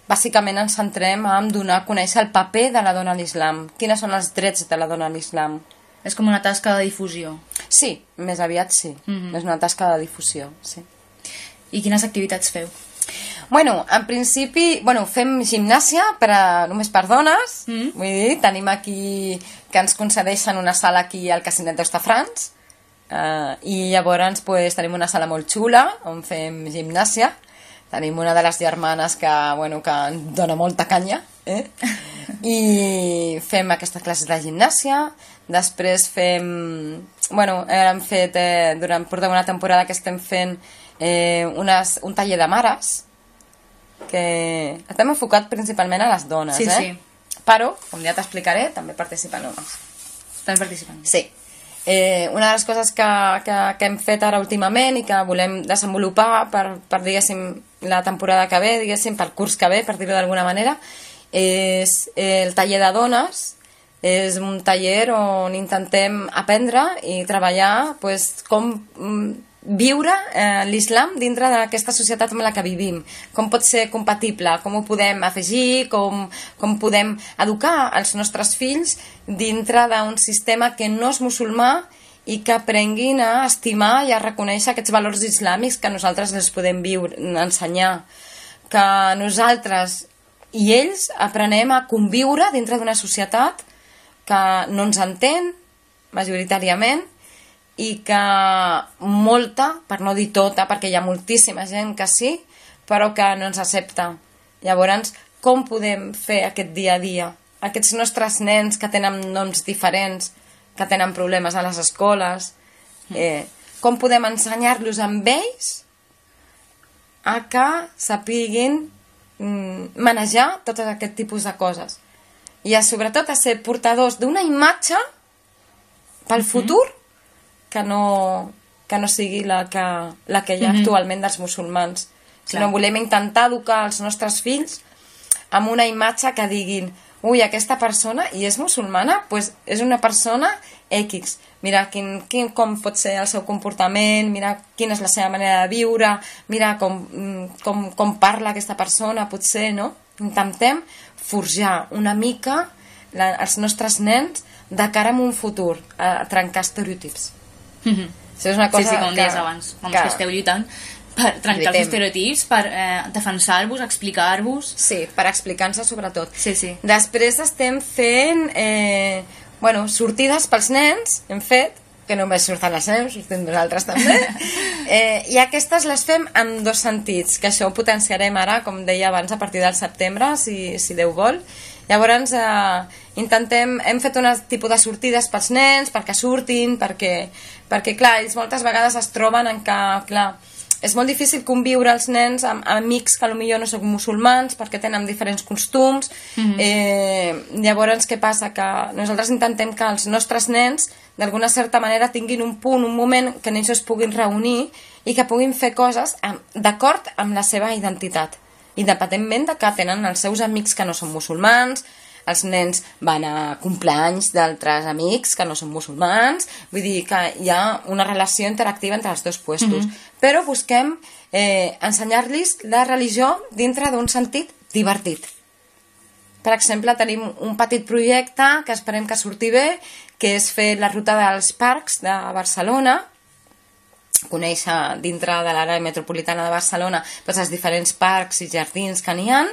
bàsicament ens centrem en donar a conèixer el paper de la dona a l'islam. Quins són els drets de la dona a l'islam? És com una tasca de difusió. Sí, més aviat sí. És una tasca de difusió, sí. I quines activitats feu? Bueno, en principi, fem gimnàsia només per dones. Vull dir, tenim aquí que ens concedeixen una sala aquí al Casinet d'Hostafrancs, i llavors tenim una sala molt xula on fem gimnàsia. Tenim una de les germanes que ens dona molta canya, i fem aquestes classes de gimnàsia. Després fem... hem fet, portem una temporada que estem fent un taller de mares, que estem enfocat principalment a les dones, sí. Però, com ja t'explicaré, també participen homes. També participen? Sí. Una de les coses que hem fet ara últimament i que volem desenvolupar per diguéssim, la temporada que ve, diguéssim, pel curs que ve, per dir-ho d'alguna manera, és el taller de dones. És un taller on intentem aprendre i treballar com viure l'islam dintre d'aquesta societat en la que vivim. Com pot ser compatible, com ho podem afegir, com podem educar els nostres fills dintre d'un sistema que no és musulmà i que aprenguin a estimar i a reconèixer aquests valors islàmics que nosaltres els podem ensenyar. Que nosaltres i ells aprenem a conviure dintre d'una societat que no ens entén majoritàriament i que molta, per no dir tota, perquè hi ha moltíssima gent que sí, però que no ens accepta. Llavors, com podem fer aquest dia a dia? Aquests nostres nens que tenen noms diferents, que tenen problemes a les escoles, com podem ensenyar-los amb ells a que sapiguin manejar tot aquest tipus de coses? I sobretot a ser portadors d'una imatge pel futur que no sigui la que hi ha actualment dels musulmans. Sinó volem intentar educar els nostres fills amb una imatge que diguin ui, aquesta persona, i és musulmana, doncs és una persona X. Mira com pot ser el seu comportament, mira quina és la seva manera de viure, mira com parla aquesta persona, potser, no? Intentem forjar una mica els nostres nens de cara a un futur, a trencar estereotips. Això és una cosa com deies abans, que esteu lluitant per trencar els estereotips, per defensar-vos, explicar-vos. Sí, per explicar-nos sobretot. Sí. Després estem fent sortides pels nens, hem fet, que només surten les nens, sortim nosaltres també, i aquestes les fem en dos sentits, que això ho potenciarem ara, com deia abans, a partir del setembre, si Déu vol. Llavors hem fet un tipus de sortides pels nens perquè surtin, perquè clar, ells moltes vegades es troben en que, clar, és molt difícil conviure els nens amb amics que potser no són musulmans perquè tenen diferents costums. Llavors què passa? Que nosaltres intentem que els nostres nens d'alguna certa manera tinguin un punt, un moment que ells es puguin reunir i que puguin fer coses d'acord amb la seva identitat, independentment de que tenen els seus amics que no són musulmans. Els nens van a compleanys d'altres amics que no són musulmans, vull dir que hi ha una relació interactiva entre els dos puestos. Però busquem ensenyar-los la religió dintre d'un sentit divertit. Per exemple, tenim un petit projecte que esperem que surti bé, que és fer la ruta dels parcs de Barcelona, conèixer dintre de l'àrea metropolitana de Barcelona els diferents parcs i jardins que n'hi ha.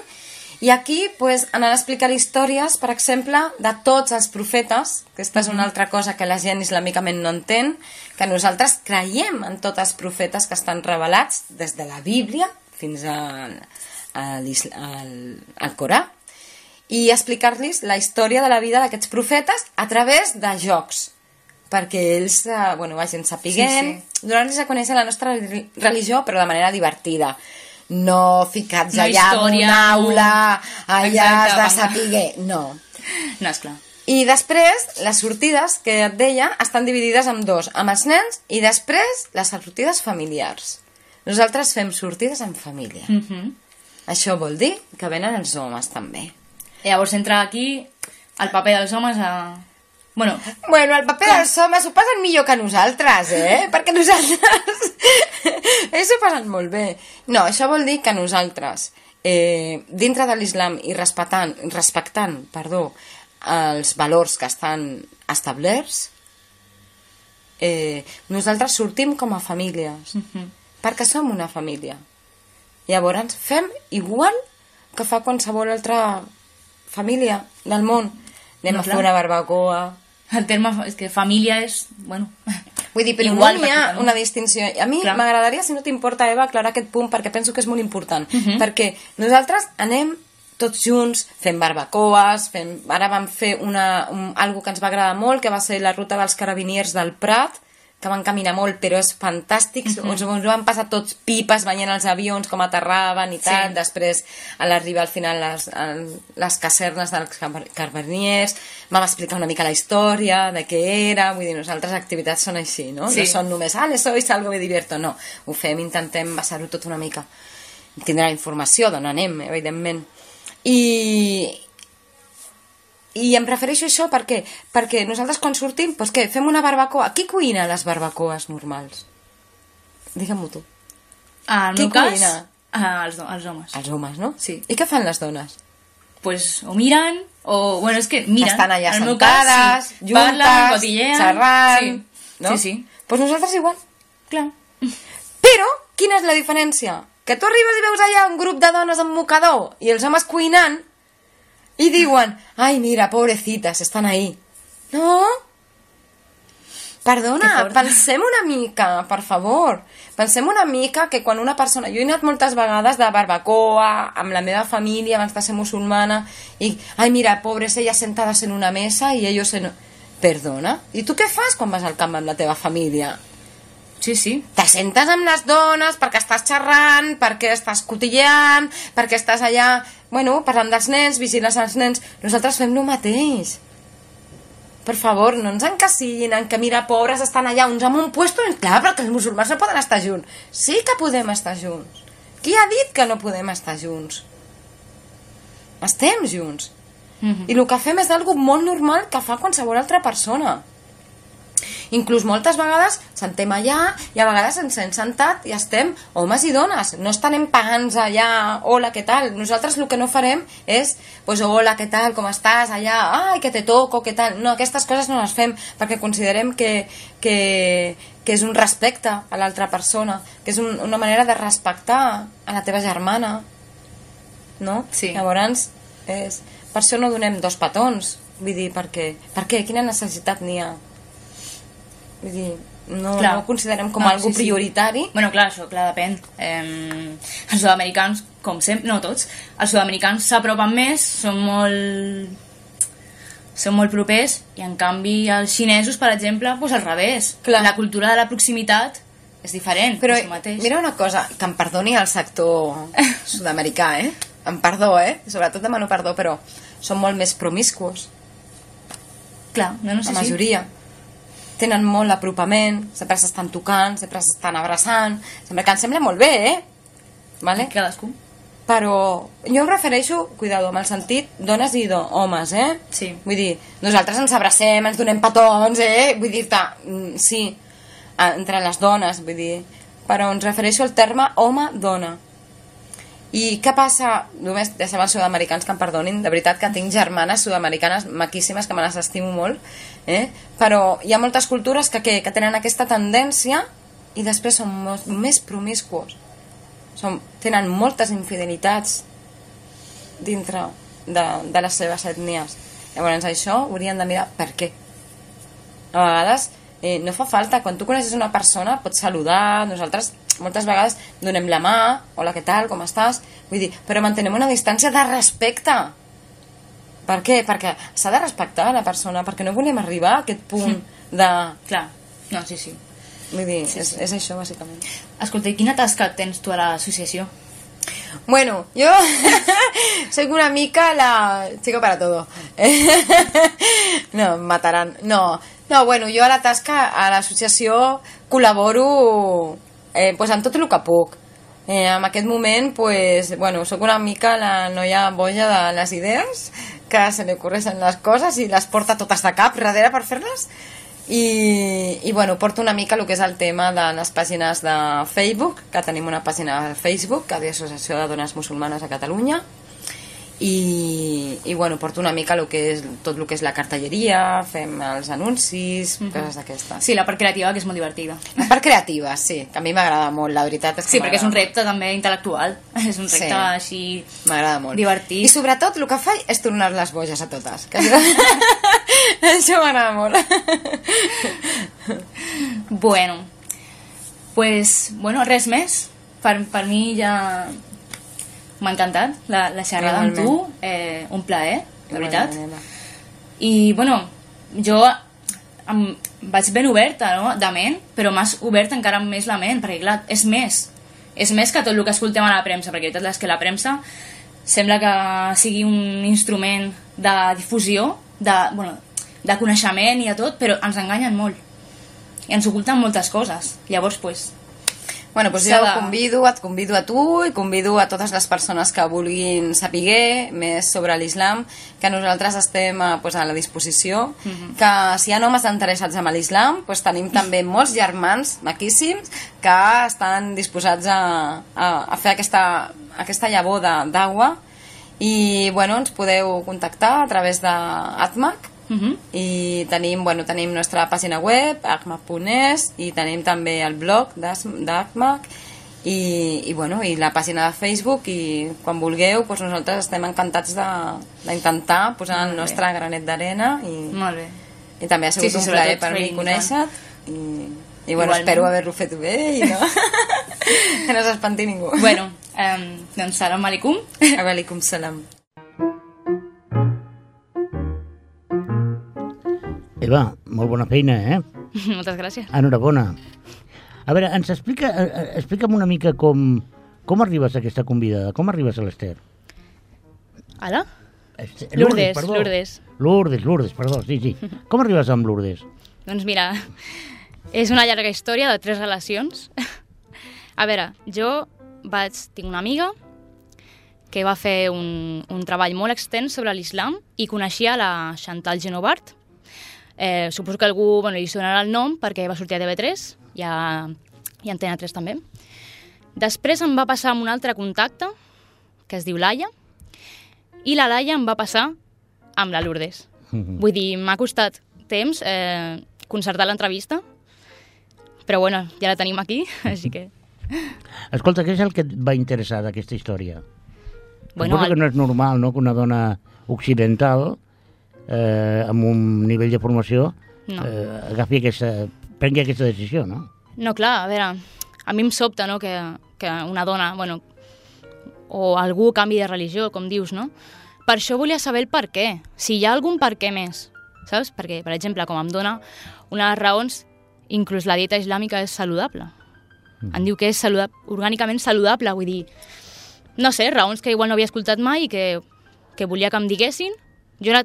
I aquí anar a explicar històries, per exemple, de tots els profetes, que aquesta és una altra cosa que la gent islamicament no entén, que nosaltres creiem en tots els profetes que estan revelats des de la Bíblia fins al Corà, i explicar-los la història de la vida d'aquests profetes a través de jocs, perquè ells vagin sapiguent, donar-los a conèixer la nostra religió, però de manera divertida. No ficats allà en una aula, allà has de saber... No, esclar. I després, les sortides, que et deia, estan dividides en dos, amb els nens i després les sortides familiars. Nosaltres fem sortides en família. Això vol dir que venen els homes, també. Llavors entra aquí el paper dels homes a... Bueno, el paper dels homes ho passen millor que nosaltres, Perquè nosaltres... ells ho passen molt bé. No, això vol dir que nosaltres, dintre de l'islam i respectant els valors que estan establerts, nosaltres sortim com a famílies, perquè som una família. Llavors fem igual que fa qualsevol altra família del món. Anem a fer una barbacoa. El terme és que família és... Bueno, vull dir, però igual no hi ha una distinció. A mi m'agradaria, si no t'importa, Eva, aclarar aquest punt, perquè penso que és molt important. Perquè nosaltres anem tots junts, fem barbacoes, ara vam fer algo que ens va agradar molt, que va ser la ruta dels carabiniers del Prat, que van caminar molt, però és fantàstic. Ens van passar tots pipes veient els avions, com aterraven i tal. Després, a l'arribar al final les casernes dels carabiniers, vam explicar una mica la història de què era. Vull dir, nosaltres activitats són així, no? No són només, sois algo, me divierto. No, ho fem, intentem basar-ho tot una mica. Tindrà la informació d'on anem, evidentment. I em refereixo a això perquè nosaltres quan sortim, doncs què, fem una barbacoa. Qui cuina les barbacoes normals? Digue-m'ho tu. En el meu cas, els homes. Els homes, no? Sí. I què fan les dones? Pues o miren, o... Bueno, és que miren. Estan allà sentades, juntes, parlen, cotillean, xerrant... No? Sí. Doncs nosaltres igual. Clar. Però, quina és la diferència? Que tu arribes i veus allà un grup de dones amb mocador i els homes cuinant i diuen, ai, mira, pobrecitas, estan ahí. No? Perdona, pensem una mica, per favor. Pensem una mica que quan una persona... Jo he anat moltes vegades de barbacoa amb la meva família abans de ser musulmana i, ai, mira, pobres, elles sentades en una mesa i ellos en... Perdona? I tu què fas quan vas al camp amb la teva família? Sí. Te sentes amb les dones perquè estàs xerrant, perquè estàs cotilleant, perquè estàs allà, parlant dels nens, vigiles als nens. Nosaltres fem el mateix. Per favor, no ens encasillin en que, mira, pobres, estan allà uns amb un puesto... Clar, però que els musulmans no poden estar junts. Sí que podem estar junts. Qui ha dit que no podem estar junts? Estem junts. I el que fem és algo molt normal que fa qualsevol altra persona. Inclús moltes vegades sentem allà i a vegades ens hem sentat i estem homes i dones, no estem pagant allà, hola, què tal? Nosaltres el que no farem és, hola, què tal, com estàs allà, ai, que te toco, què tal? No, aquestes coses no les fem perquè considerem que és un respecte a l'altra persona, que és una manera de respectar a la teva germana, no? Sí. Llavors, per això no donem 2 petons, vull dir, per què? Quina necessitat n'hi ha? Vull dir, no ho considerem com algo prioritari. Bueno, clar, això, depèn. Els sud-americans, com sempre, no tots, els sud-americans s'apropen més, són molt propers, i en canvi els xinesos, per exemple, al revés. La cultura de la proximitat és diferent. Però mira una cosa, que em perdoni el sector sud-americà, em perdó, sobretot demano perdó, però són molt més promiscuos. Clar, no sé si... La majoria. Tenen molt apropament, sempre s'estan tocant, sempre s'estan abraçant, sempre que em sembla molt bé, Vale? Cadascú. Però jo em refereixo, cuidado, amb el sentit dones i homes, Sí. Vull dir, nosaltres ens abracem, ens donem petons, Vull dir-te, sí, entre les dones, vull dir, però ens refereixo al terme home-dona. I què passa? Només deixem els sud-americans que em perdonin, de veritat que tinc germanes sud-americanes maquíssimes que me les estimo molt, però hi ha moltes cultures que tenen aquesta tendència i després són més promiscuos, tenen moltes infidelitats dintre de les seves ètnies. Llavors això haurien de mirar per què. A vegades no fa falta, quan tu coneixes una persona pots saludar, nosaltres moltes vegades donem la mà, hola, què tal, com estàs, vull dir, però mantenem una distància de respecte, Per què? Perquè s'ha de respectar la persona, perquè no volem arribar a aquest punt de... Clar, no, sí. Vull dir, és això, bàsicament. Escolta, i quina tasca tens tu a l'associació? Bueno, yo soy una mica la chica para todo. No, em mataran. No, bueno, jo a la tasca, a l'associació, col·laboro pues, amb tot el que puc. En aquest moment, pues, bueno, soc una mica la noia boja de les idees, que se li ocorreixen les coses i les porta totes de cap darrere per fer-les. I bueno, porto una mica el que és el tema de les pàgines de Facebook, que tenim una pàgina de Facebook, que és l'Associació de Dones Musulmanes a Catalunya, i bueno, porto una mica tot el que és la cartelleria, fem els anuncis, coses d'aquestes. Sí, la part creativa, que és molt divertida. La part creativa, sí, que a mi m'agrada molt, la veritat és que sí, perquè és un repte també intel·lectual, és un repte així m'agrada molt. Divertit. I sobretot el que faig és tornar les boges a totes. Això m'agrada molt. Bueno, pues, res més. Per mi ja... M'ha encantat la xerrada amb tu, un plaer, de veritat. I, bueno, jo vaig ben oberta, no?, de ment, però m'has obert encara més la ment, perquè, clar, és més que tot el que escoltem a la premsa, perquè la veritat és que la premsa sembla que sigui un instrument de difusió, de coneixement i de tot, però ens enganyen molt. I ens oculten moltes coses. Llavors, doncs... Bueno, doncs jo et convido a tu i convido a totes les persones que vulguin saber més sobre l'islam, que nosaltres estem pues, a la disposició, que si hi ha homes interessats en l'islam, pues, tenim també molts germans maquíssims que estan disposats a fer aquesta llavor d'aigua i bueno, ens podeu contactar a través d'ATMAC. I tenim nostra pàgina web acmac.es i tenim també el blog d'ACMAC i la pàgina de Facebook i quan vulgueu nosaltres estem encantats d'intentar posar el nostre granet d'arena i també ha sigut un plaer per mi conèixer-te i bueno, espero haver-lo fet bé i no que no s'espanti ningú. Bueno, doncs salam aleikum. Aleikum salam. Eva, molt bona feina, Moltes gràcies. Enhorabona. A veure, explica'm una mica com arribes a aquesta convidada, com arribes a l'Ester? Ala? Lourdes, perdó, sí. Com arribes amb Lourdes? Doncs mira, és una llarga història de 3 relacions. A veure, jo tinc una amiga que va fer un treball molt extens sobre l'islam i coneixia la Chantal Genovart. Suposo que algú li sonarà el nom perquè va sortir a TV3 i a Antena 3 també. Després em va passar amb un altre contacte que es diu Laia i la Laia em va passar amb la Lourdes. Vull dir, m'ha costat temps concertar l'entrevista, però bueno, ja la tenim aquí, així que... Escolta, què és el que et va interessar d'aquesta història? Suposo que no és normal, no?, que una dona occidental amb un nivell de formació prengui aquesta decisió, no? No, clar, a veure, a mi em sobta, no?, que una dona, o algú canvi de religió, com dius, no? Per això volia saber el per què, si hi ha algun per què més, saps? Perquè, per exemple, com em dona una de les raons, inclús la dieta islàmica és saludable. Em diu que és orgànicament saludable, vull dir, no sé, raons que igual no havia escoltat mai i que volia que em diguessin. Jo he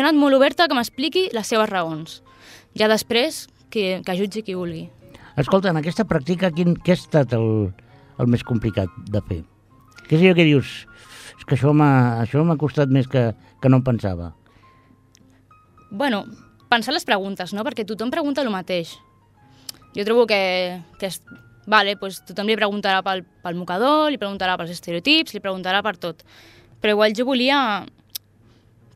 anat molt oberta que m'expliqui les seves raons. Ja després, que jutgi qui vulgui. Escolta, en aquesta pràctica, què ha estat el més complicat de fer? Què és allò que dius? És que això m'ha costat més que no em pensava. Bueno, pensar les preguntes, no? Perquè tothom pregunta el mateix. Jo trobo que tothom li preguntarà pel mocador, li preguntarà pels estereotips, li preguntarà per tot. Però igual jo volia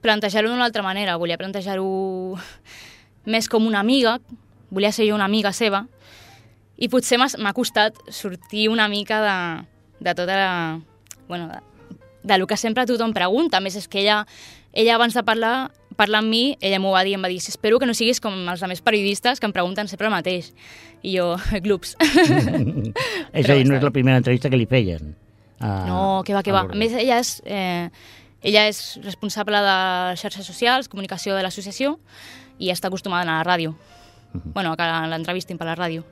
plantejar-ho d'una altra manera, volia plantejar-ho més com una amiga, volia ser jo una amiga seva, i potser m'ha costat sortir una mica de tota la... de lo que sempre tothom pregunta. A més, és que ella abans de parlar amb mi, ella m'ho va dir, em va dir, espero que no siguis com els altres periodistes que em pregunten sempre el mateix. I jo, glups. És a dir, no és la primera entrevista que li feien. No, que va. A més, ella Ella és responsable de xarxes socials, comunicació de l'associació, i està acostumada a anar a la ràdio. Bueno, que l'entrevistin per la ràdio.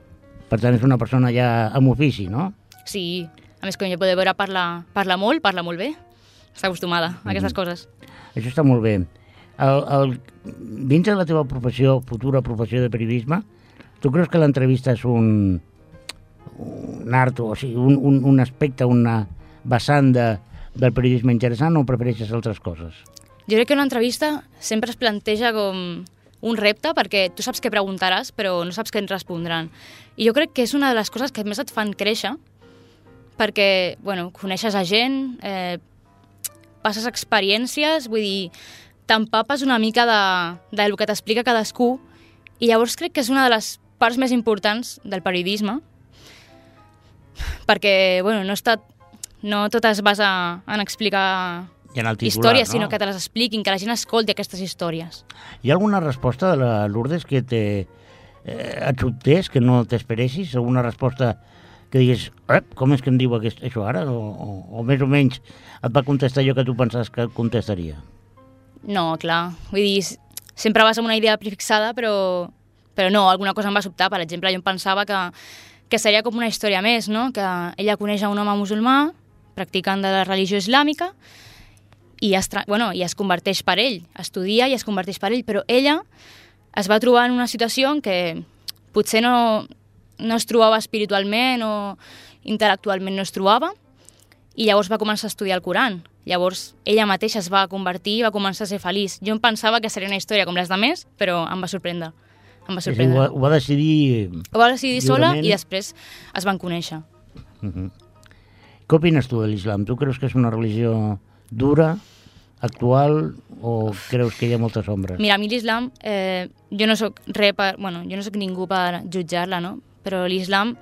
Per tant, és una persona ja amb ofici, no? Sí, a més, com ja podeu veure, parla molt bé. Està acostumada a aquestes coses. Això està molt bé. Dins de la teva professió, futura professió de periodisme, tu creus que l'entrevista és un art, o sigui, un aspecte, una vessant del periodisme interessant, o prefereixes altres coses? Jo crec que una entrevista sempre es planteja com un repte, perquè tu saps què preguntaràs, però no saps què et respondran. I jo crec que és una de les coses que més et fan créixer, perquè, bueno, coneixes a gent, passes experiències, vull dir, t'empapes una mica del que t'explica cadascú, i llavors crec que és una de les parts més importants del periodisme, perquè, bueno, no tot es basa en explicar històries, sinó que te les expliquin, que la gent escolti aquestes històries. Hi ha alguna resposta de la Lourdes que et sobtés, que no t'esperessis? Alguna resposta que diguis, com és que em diu això ara? O més o menys et va contestar allò que tu pensaves que et contestaria? No, clar. Vull dir, sempre vas amb una idea prefixada, però no, alguna cosa em va sobtar. Per exemple, jo em pensava que seria com una història més, no? Que ella coneix un home musulmà, practicant de la religió islàmica, i es converteix per ell, estudia i es converteix per ell, però ella es va trobar en una situació en què potser no es trobava espiritualment o intel·lectualment no es trobava, i llavors va començar a estudiar el Coran. Llavors ella mateixa es va convertir i va començar a ser feliç. Jo em pensava que seria una història com les demés, però em va sorprendre. Ho va decidir... Ho va decidir sola i després es van conèixer. Què opines tu de l'islam? Tu creus que és una religió dura, actual, o creus que hi ha moltes ombres? Mira, a mi l'islam, jo no soc ningú per jutjar-la, no? Però l'islam,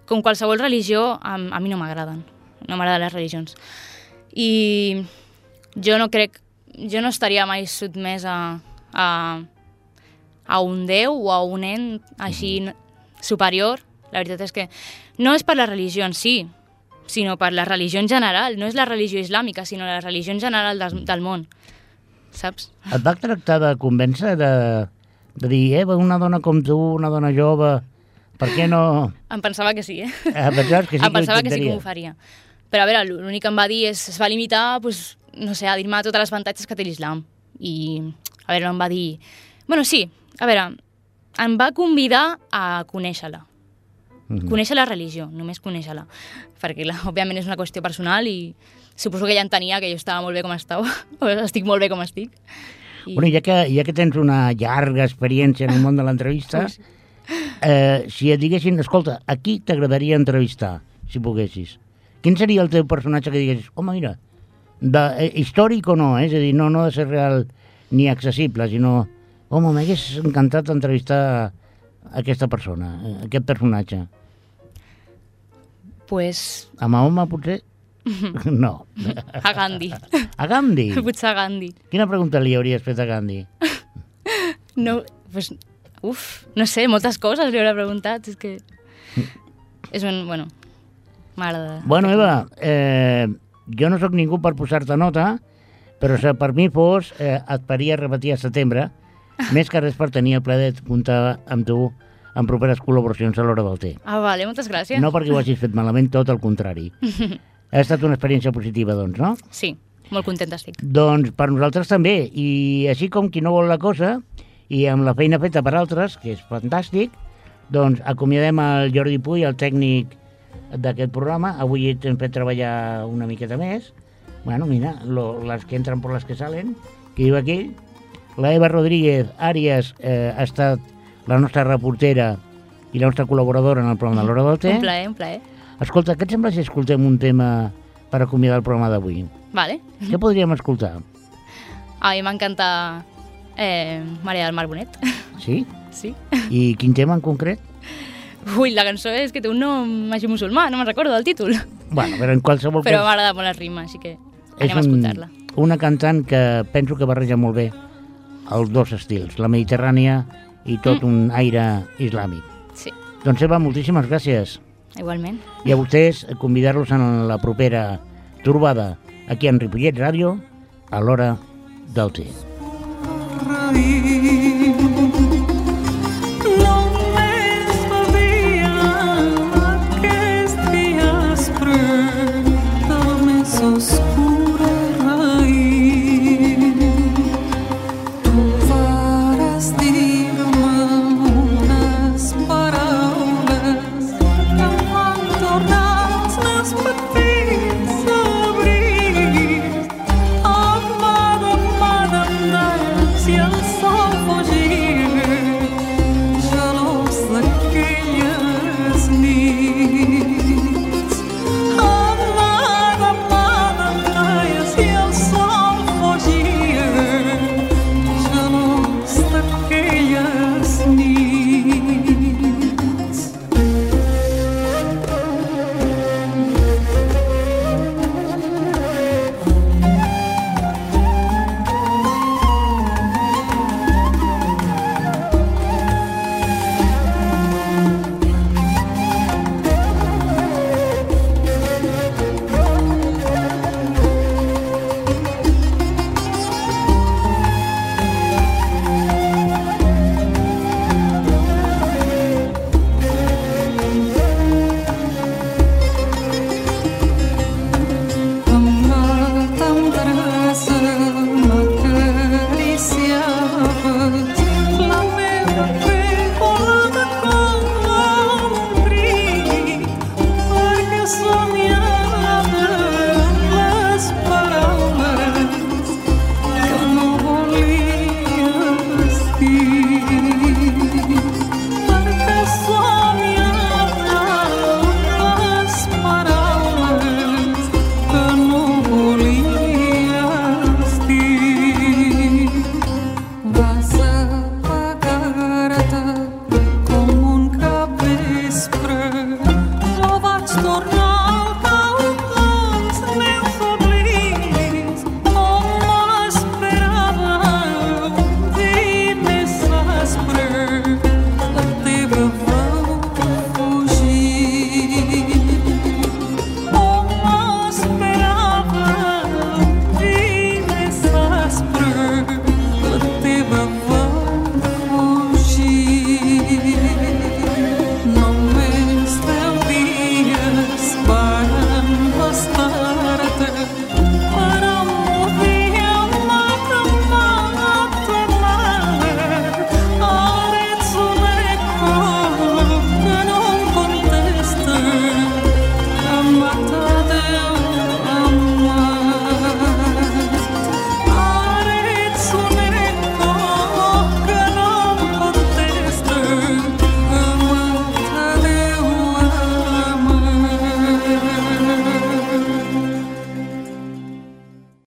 com qualsevol religió, a mi no m'agraden. No m'agraden les religions. I jo no estaria mai sotmès a un déu o a un ent així superior. La veritat és que no és per la religió en si, sinó per la religió en general. No és la religió islàmica, sinó la religió en general del món. Saps? Et va tractar de convèncer, de dir, una dona com tu, una dona jove, per què no... Em pensava que sí, Pensaves que sí, em pensava que sí que m'ho faria. Però a veure, l'únic que em va dir es va limitar, no sé, a dir-me tots els avantatges que té l'islam. I, a veure, no em va dir... Bueno, sí, a veure, em va convidar a conèixer-la. Conèixer la religió, només conèixer-la. Perquè, òbviament, és una qüestió personal i suposo que ella entenia que jo estava molt bé com estava, o estic molt bé com estic. Bueno, ja que tens una llarga experiència en el món de l'entrevista, si et diguessin, escolta, a qui t'agradaria entrevistar, si poguessis? Quin seria el teu personatge que diguessis, home, mira, històric o no, és a dir, no ha de ser real ni accessible, sinó, home, m'hagués encantat entrevistar aquesta persona, aquest personatge. Pues... A Mahoma, potser? No. A Gandhi. A Gandhi? Potser a Gandhi. Quina pregunta li hauries fet a Gandhi? No, pues... no sé, moltes coses li hauré preguntat, és que... Bueno, m'agrada. Bueno, Eva, jo no sóc ningú per posar-te nota, però si per mi fos, et faria repetir a setembre, més que res per tenir el plaer de comptar amb tu en properes col·laboracions a l'Hora del Té. Ah, vale, moltes gràcies. No perquè ho hagis fet malament, tot el contrari. Ha estat una experiència positiva, doncs, no? Sí, molt contenta estic. Doncs per nosaltres també, i així com qui no vol la cosa, i amb la feina feta per altres, que és fantàstic, doncs acomiadem el Jordi Puy, el tècnic d'aquest programa. Avui hem fet treballar una miqueta més. Bueno, mira, les que entren per les que salen, que diu aquell. La Eva Rodríguez Àries ha estat la nostra reportera i la nostra col·laboradora en el programa de l'Hora del Té. Un plaer, un plaer. Escolta, què et sembla si escoltem un tema per acomiadar el programa d'avui? Vale. Què podríem escoltar? A mi m'encanta Maria del Mar Bonet. Sí? Sí. I quin tema en concret? Ui, la cançó és que té un nom així musulmà, no me'n recordo del títol. Bueno, però en qualsevol cas... Però m'agrada molt la rima, així que anem a escoltar-la. Una cantant que penso que barreja molt bé els dos estils, la mediterrània i tot un aire islàmic. Sí. Doncs Eva, moltíssimes gràcies. Igualment. I a vostès convidar-los en la propera trobada aquí en Ripollet Ràdio a l'hora del té.